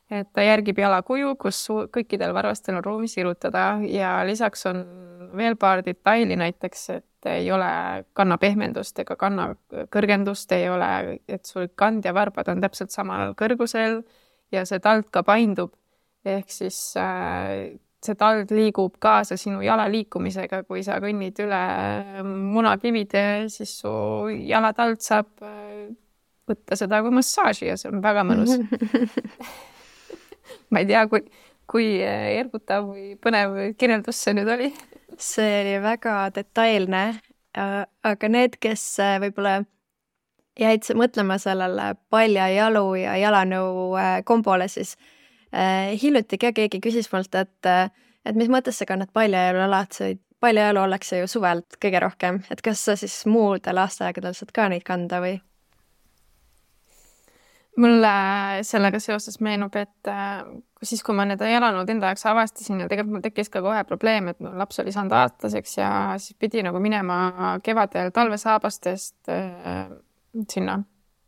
Et ta järgib jalakuju, kus kõikidel varvastel on ruumis irutada ja lisaks on veel paar detaili näiteks, et ei ole kanna pehmendust ega kanna kõrgendust, ei ole, et sul kand ja varbad on täpselt samal kõrgusel ja see tald ka paindub. Ehk siis see tald liigub kaasa sinu jala liikumisega, kui sa kõnnid üle munakivide, siis su jalatald saab võtta seda kui massaaži ja see on väga mõnus. Ma ei tea, kui ergutav või põnev kirjeldus see nüüd oli. See oli väga detailne, aga need, kes võib-olla jäid mõtlema sellele paljajalu ja jalanõu kombole, siis hiljuti keegi küsis mult, et mis mõttes sa kannad paljajalu jalatsid. Paljajalu ollakse ju suvelt kõige rohkem, et kas sa siis muudel aastaaegadel saad ka neid kanda või? Mulle sellega seoses meenub, et siis, kui ma need jalanõud enda jaoks avastasin ja tegelikult mul tekkis ka kohe probleem, et laps oli saanud aastaseks ja siis pidi minema kevadel talvesaabastest sinna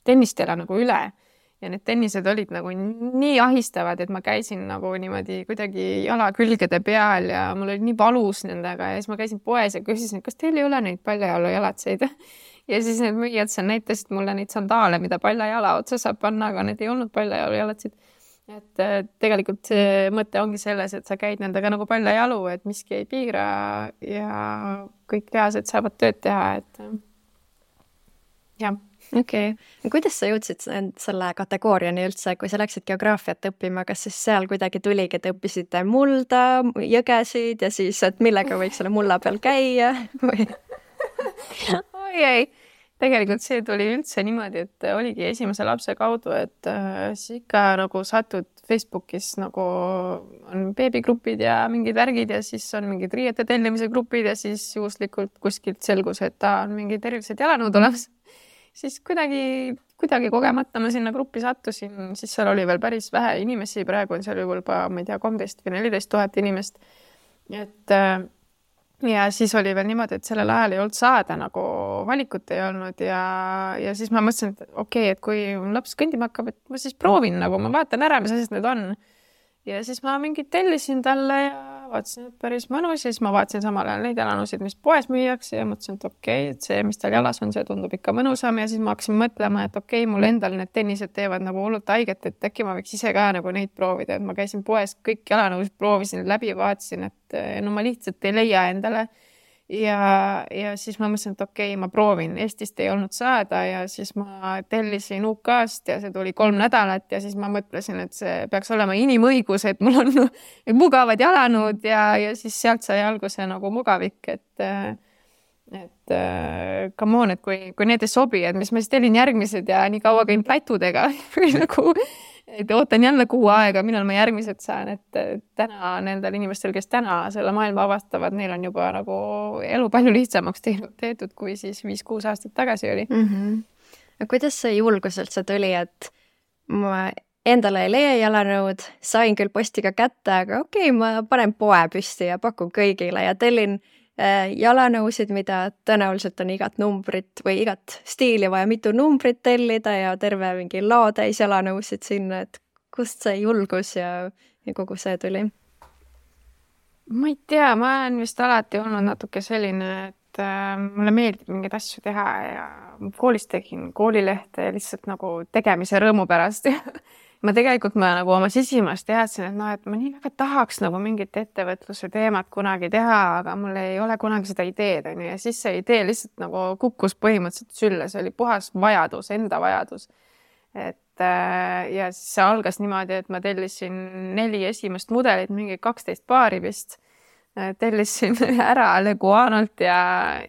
tennistele nagu üle ja need tennised olid nagu nii ahistavad, et ma käisin nagu niimoodi kuidagi jala külgede peal ja mul oli nii valus nendega ja siis ma käisin poes ja küsisin, kas teil ei ole neid paljajalujalatseid ja siis need müüjad seal näitasid mulle neid sandaale, mida paljajala otsa saab panna, aga need ei olnud paljajalujalatsid. Et tegelikult see mõte ongi selles, et sa käid nendega nagu paljajalu, et miski ei piira ja kõik lihased saavad tööd teha, et jah. Okei. Kuidas sa jõudsid selle kategooriani üldse, kui sa läksid geograafiat õppima, kas siis seal kuidagi tuligi, et õppisite mulda, jõgesid ja siis, et millega võiks selle mulla peal käia või? Oi ei. Tegelikult see tuli üldse niimoodi, et oligi esimese lapse kaudu, et siis ikka nagu satud Facebookis nagu on beebigrupid ja mingid värgid ja siis on mingid riiete tellimise grupid ja siis juhuslikult kuskilt selgus, et ta on mingid erilised jalanõud olemas. Siis kuidagi kogemata ma sinna gruppi sattusin, siis seal oli veel päris vähe inimesi, praegu on seal juba, ma ei tea, 13 või 14 000 inimest. Et ja siis oli veel niimoodi, et sellel ajal ei olnud saada nagu valikut ei olnud ja siis ma mõtlesin, et okei, et kui laps kõndima hakkab, et ma siis proovin nagu, ma vaatan ära, mis asjad need on. Ja siis ma mingid tellisin talle ja vaatasin, et päris mõnus ja siis ma vaatasin samal ajal neid jalanõusid, mis poes müüakse ja mõtlesin, et okei, et see, mis tal jalas on, see tundub ikka mõnusam ja siis ma hakkasin mõtlema, et okei, mul endal need tennised teevad nagu hullult haiget, et äkki ma võiks ise ka nagu neid proovida, et ma käisin poes, kõik jalanõusid proovisin läbi, vaatasin, et no ma lihtsalt ei leia endale. Ja siis ma mõtlesin, et okei, ma proovin. Eestist ei olnud saada ja siis ma tellisin UK-st ja see tuli 3 nädalat ja siis ma mõtlesin, et see peaks olema inimõigus, et mul on mugavad jalanõud ja siis sealt sai alguse nagu mugavik, et come on, et kui need ei sobi, et mis ma siis tellin järgmised ja nii kaua käin plätudega või nagu et ootan jälle kuu aega, millal ma järgmised saan, et täna nendel inimestel, kes täna selle maailma avastavad, neil on juba nagu elu palju lihtsamaks tehtud, kui siis 5-6 aastat tagasi oli. Kuidas see julgus üldse tuli, et ma endale ei leia jalanõud, sain küll postiga kätte, aga okei, ma panen poe püsti ja pakun kõigile ja tellin jalanõusid, mida tõenäoliselt on igat numbrit või igat stiili vaja mitu numbrit tellida ja terve mingi laotäis jalanõusid sinna, et kust see julgus ja kogu see tuli? Ma ei tea, ma olen vist alati olnud natuke selline, et mulle meeldib mingeid asju teha ja koolis tegin koolilehte lihtsalt nagu tegemise rõõmu pärast. Ma nagu oma sisimast teadsin, et ma nii väga tahaks nagu mingit ettevõtluse teemat kunagi teha, aga mul ei ole kunagi seda ideed. Ja siis see idee lihtsalt nagu kukkus põhimõtteliselt sülle. See oli puhas vajadus, enda vajadus. Ja siis see algas niimoodi, et ma tellisin 4 esimest mudelit, mingi 12 paari vist. Tellisin ära Leguanolt ja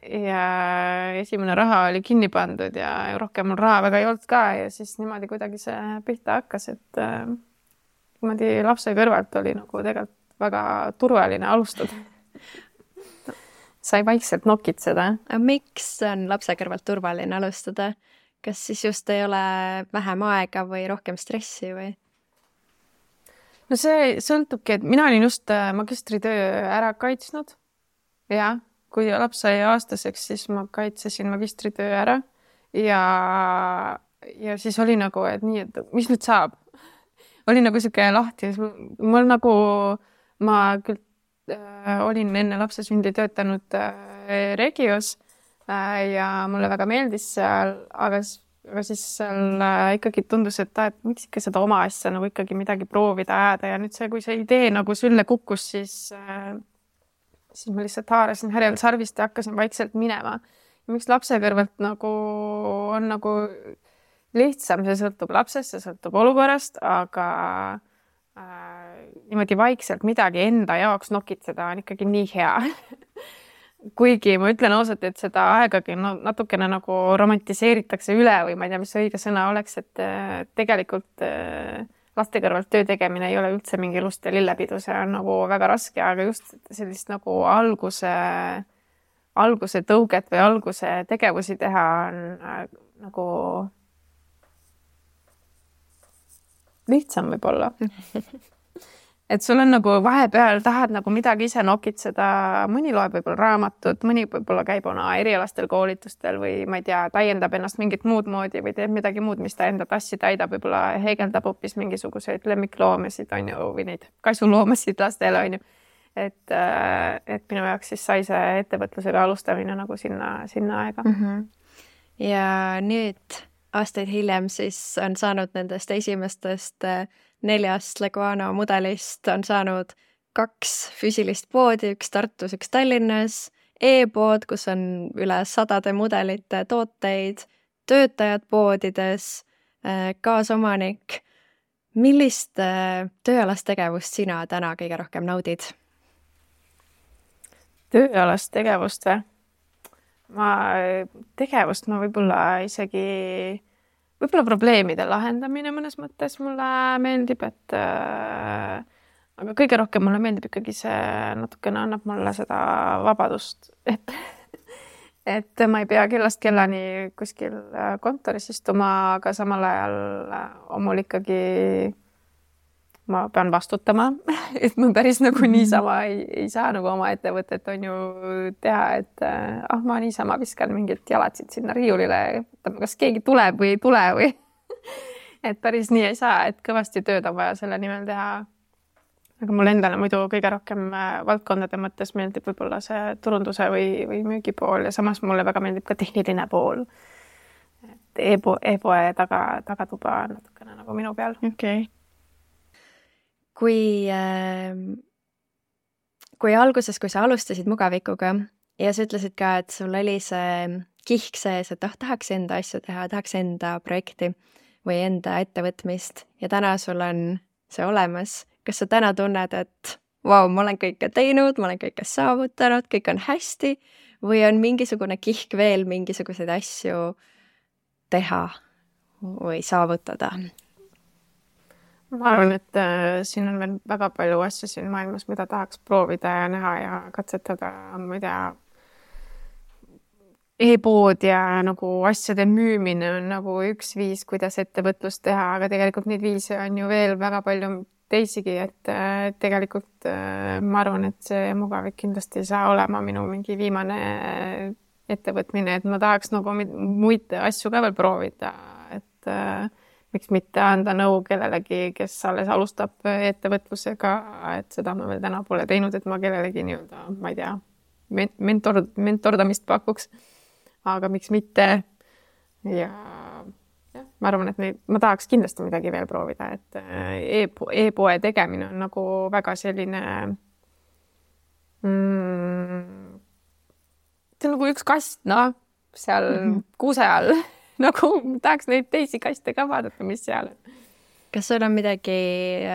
esimene raha oli kinni pandud ja rohkem mul raha väga ei olnud ka ja siis niimoodi kuidagi see pihta hakkas, et niimoodi lapse kõrvalt oli nagu tegelikult väga turvaline alustada. Sai vaikselt nokitseda. Miks on lapse kõrvalt turvaline alustada? Kas siis just ei ole vähem aega või rohkem stressi või? No see sõltubki, et mina olin just magistritöö ära kaitsnud. Ja kui laps sai aastaseks, siis ma kaitsesin magistritöö ära. Ja siis oli nagu, et nii, et mis nüüd saab? Oli nagu siuke lahti. Mul nagu, ma küll olin enne lapse sündi töötanud Regios ja mulle väga meeldis seal, aga siis seal ikkagi tundus, et miks ikka seda oma asja nagu ikkagi midagi proovida ajada ja nüüd see, kui see idee nagu sülle kukkus, siis ma lihtsalt haarasin härjal sarvist ja hakkasin vaikselt minema. Ja miks lapse kõrvalt nagu on nagu lihtsam, see sõltub lapsest, see sõltub olukorrast, aga niimoodi vaikselt midagi enda jaoks nokitseda on ikkagi nii hea. Kuigi ma ütlen ausalt, et seda aegagi natukene nagu romantiseeritakse üle või ma ei tea, mis õige sõna oleks, et tegelikult laste kõrvalt töö tegemine ei ole üldse mingi lust ja lillepidu, see on nagu väga raske, aga just sellist nagu alguse tõuget või alguse tegevusi teha on nagu lihtsam võib-olla. et sul on nagu vahepeal tahad nagu midagi ise nokitseda, mõni loeb võib-olla raamatut, mõni võib-olla käib oma erialastel koolitustel või ma ei tea, täiendab ennast mingit muud moodi või teeb midagi muud, mis ta enda tassi täidab, võib-olla heegeldab hoopis mingisuguseid lemmikloomasid, on ju, või neid kasuloomasid lastele, on ju. Et minu jaoks siis sai see ettevõtlusega alustamine nagu sinna aega. Ja nüüd aastaid hiljem siis on saanud nendest esimestest 4 Leguano mudelist on saanud 2 füüsilist poodi, üks Tartus, üks Tallinnas, e-pood, kus on üle 100 mudelite tooteid, töötajad poodides, kaasomanik. Millist tööalast tegevust sina täna kõige rohkem naudid? Tööalast tegevust või? Tegevust ma võib-olla isegi, võib-olla probleemide lahendamine mõnes mõttes mulle meeldib, et aga kõige rohkem mulle meeldib ikkagi see natukene annab mulle seda vabadust, et ma ei pea kellast kellani kuskil kontoris istuma, aga samal ajal mul ikkagi ma pean vastutama, et ma päris nagu niisama ei saa nagu oma ettevõtet on ju teha, et ma niisama viskan mingit jalatsid sinna riiulile, kas keegi tuleb või ei tule või et päris nii ei saa, et kõvasti tööd on vaja selle nimel teha. Aga mul endale muidu kõige rohkem valdkondade mõttes meeldib võib-olla see turunduse või müügipool ja samas mulle väga meeldib ka tehniline pool. Et e-poe tagatuba on natukene nagu minu peal. Okay. Kui alguses, kui sa alustasid Mugavikuga ja sa ütlesid ka, et sul oli see kihk sees, et tahaks enda asju teha, tahaks enda projekti või enda ettevõtmist ja täna sul on see olemas. Kas sa täna tunned, et vau, ma olen kõike teinud, ma olen kõike saavutanud, kõik on hästi või on mingisugune kihk veel mingisuguseid asju teha või saavutada? Ma arvan, et siin on veel väga palju asju siin maailmas, mida tahaks proovida ja näha ja katsetada, ma ei tea, e-pood ja nagu asjade müümine on nagu üks viis, kuidas ettevõtlust teha, aga tegelikult neid viise on ju veel väga palju teisigi, et tegelikult ma arvan, et see Mugavik kindlasti ei saa olema minu mingi viimane ettevõtmine, et ma tahaks nagu muid asju ka veel proovida, et miks mitte anda nõu kellelegi, kes alles alustab ettevõtlusega, et seda ma veel täna pole teinud, et ma kellelegi nii-öelda, ma ei tea, mentordamist pakuks, aga miks mitte. Ja ma arvan, et ma tahaks kindlasti midagi veel proovida, et e-poe tegemine on nagu väga selline see on nagu üks kast, seal kuuse all. Nagu tahaks neid teisi kaste ka vaadata, mis seal on. Kas sul on midagi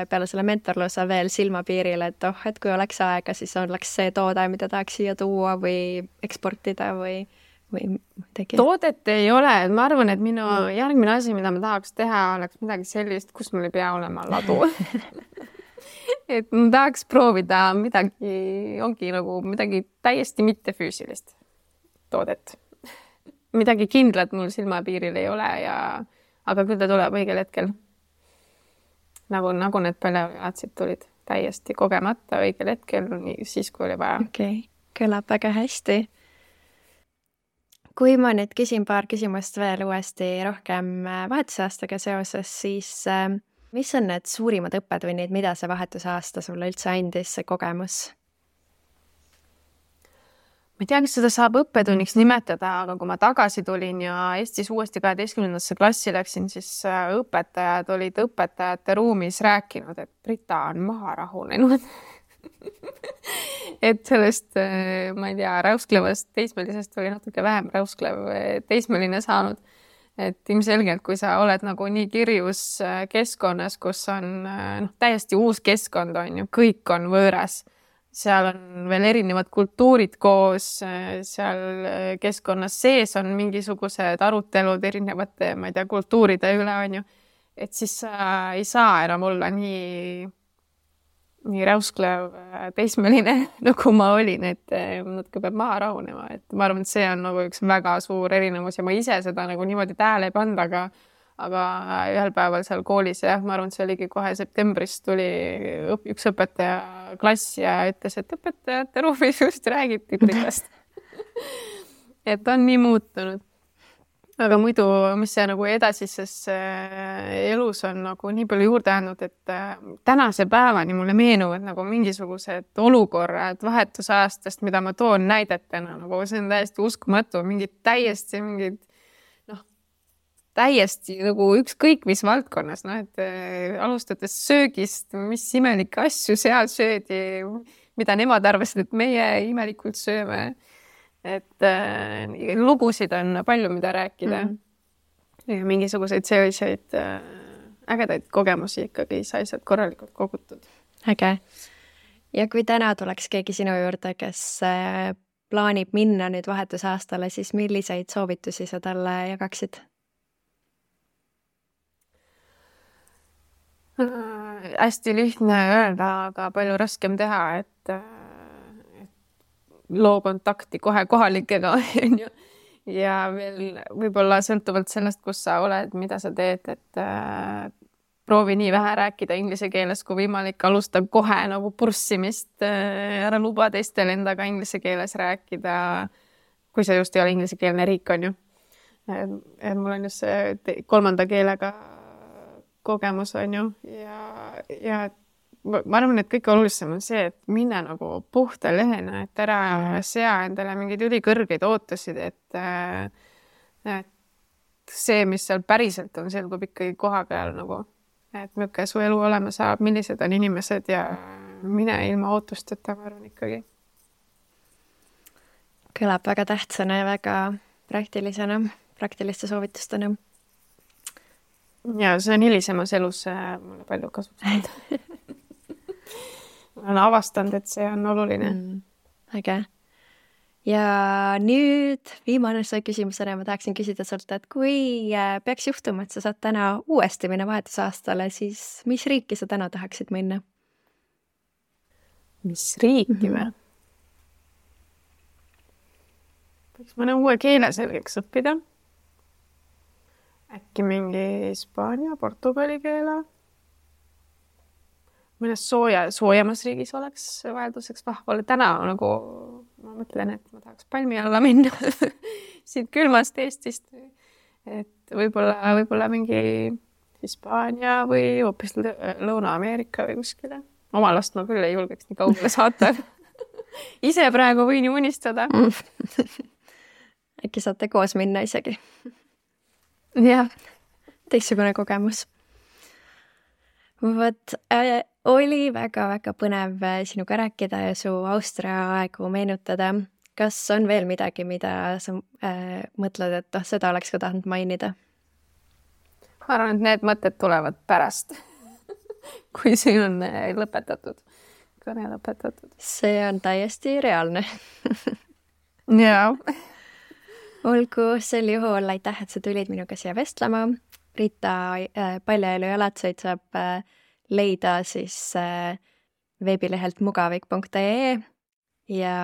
peale selle mentorluse veel silmapiiril, et et kui oleks aega, siis oleks see toode, mida tahaks siia tuua või eksportida või midagi? Toodet ei ole. Ma arvan, et minu järgmine asi, mida ma tahaks teha, oleks midagi sellist, kus mul ei pea olema ladu. Et ma tahaks proovida ongi nagu midagi täiesti mittefüüsilist toodet. Midagi kindlat mul silmapiiril ei ole, aga küll ta tuleb õigel hetkel. Nagu need paljalatsid tulid täiesti kogemata õigel hetkel, siis kui oli vaja. Okay. Kõlab väga hästi. Kui ma nüüd küsin paar küsimust veel uuesti rohkem vahetusaastaga seoses, siis mis on need suurimad õppetunnid, mida see vahetusaasta sulle üldse andis, see kogemus? Ma ei tea, kas seda saab õppetunniks nimetada, aga kui ma tagasi tulin ja Eestis uuesti 12. klassi läksin, siis õpetajad olid õpetajate ruumis rääkinud, et Brita on maha rahunenud. Et sellest, ma ei tea, räusklevast teismelisest oli natuke vähem räusklev teismeline saanud. Et ilmselgelt, kui sa oled nagu nii kirjus keskkonnas, kus on täiesti uus keskkond on ju, kõik on võõras. Seal on veel erinevad kultuurid koos, seal keskkonnas sees on mingisugused arutelud erinevate, ma ei tea, kultuuride üle on ju. Et siis sa ei saa enam olla nii räusklev teismeline, nagu ma olin, et natuke peab maha rahunema. Et ma arvan, et see on nagu üks väga suur erinevus ja ma ise seda nagu niimoodi tähele ei pannud, aga ühel päeval seal koolis ja ma arvan, et see oligi kohe septembris tuli üks õpetaja klass ja ütles, et õpetajate ruumis just räägiti Britast. Et on nii muutunud. Aga muidu, mis see nagu edasises elus on nagu nii palju juurde andnud, et tänase päevani mulle meenuvad nagu mingisugused olukorrad vahetusajastest, mida ma toon näidetena, nagu see on täiesti uskumatu, täiesti nagu ükskõik mis valdkonnas, et alustades söögist, mis imelikke asju seal söödi, mida nemad arvasid, et meie imelikult sööme. Et lugusid on palju, mida rääkida. Ja mingisuguseid selliseid ägedaid kogemusi ikkagi sai sealt korralikult kogutud. Äge. Ja kui täna tuleks keegi sinu juurde, kes plaanib minna nüüd vahetusaastale, siis milliseid soovitusi sa talle jagaksid? Hästi lihtne öelda, aga palju raskem teha, et loo kontakti kohe kohalikega ja veel võib-olla sõltuvalt sellest, kus sa oled, mida sa teed, et proovi nii vähe rääkida inglise keeles kui võimalik, alusta kohe nagu purssimist, ära luba teistel endaga inglise keeles rääkida, kui see just ei ole inglisekeelne riik, on ju. Mul on just see 3. keelega kogemus, on ju, ja ma arvan, et kõige olulisem on see, et mine nagu puhta lehena, et ära sea endale mingeid ülikõrgeid ootusid, et see, mis seal päriselt on, selgub ikkagi koha peal nagu, et milline su elu olema saab, millised on inimesed ja mine ilma ootusteta, ma arvan ikkagi. Kõlab väga tähtsana ja väga praktiliste soovitustena. Ja see on hilisemas elus mulle palju kasutanud. Ma olen avastanud, et see on oluline. Äge. Ja nüüd viimane küsimusena ma tahaksin küsida sult, et kui peaks juhtuma, et sa saad täna uuesti minna vahetusaastale, siis mis riiki sa täna tahaksid minna? Mis riiki või? Võiks mõne uue keele selgeks õppida. Äkki mingi Hispaania, Portugali keele. Mõnes soojamas riigis oleks vahelduseks vahvale. Täna nagu ma mõtlen, et ma tahaks palmi alla minna siit külmast Eestist. Et võib-olla mingi Hispaania või hoopis Lõuna-Ameerika või kuskile. Oma last ma küll ei julgeks nii kaugele saata. Ise praegu võin ju unistada. Äkki saate koos minna isegi. Jah. Teistsugune kogemus. Võt, oli väga-väga põnev sinuga rääkida ja su Austria aegu meenutada. Kas on veel midagi, mida sa mõtled, et seda oleks ka tahtnud mainida? Ma arvan, et need mõtted tulevad pärast, kui siin on lõpetatud, kõne lõpetatud. See on täiesti reaalne. Jaa. Olgu, sel juhul aitäh, et sa tulid minuga siia vestlema. Brita Paljaelu jalatseid saab leida siis veebilehelt mugavik.ee ja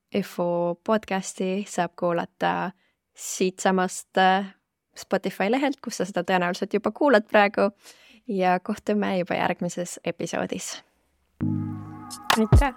EFU podcasti saab kuulata siit samast Spotify lehelt, kus sa seda tõenäoliselt juba kuulad praegu ja kohtume juba järgmises episoodis. Aitäh!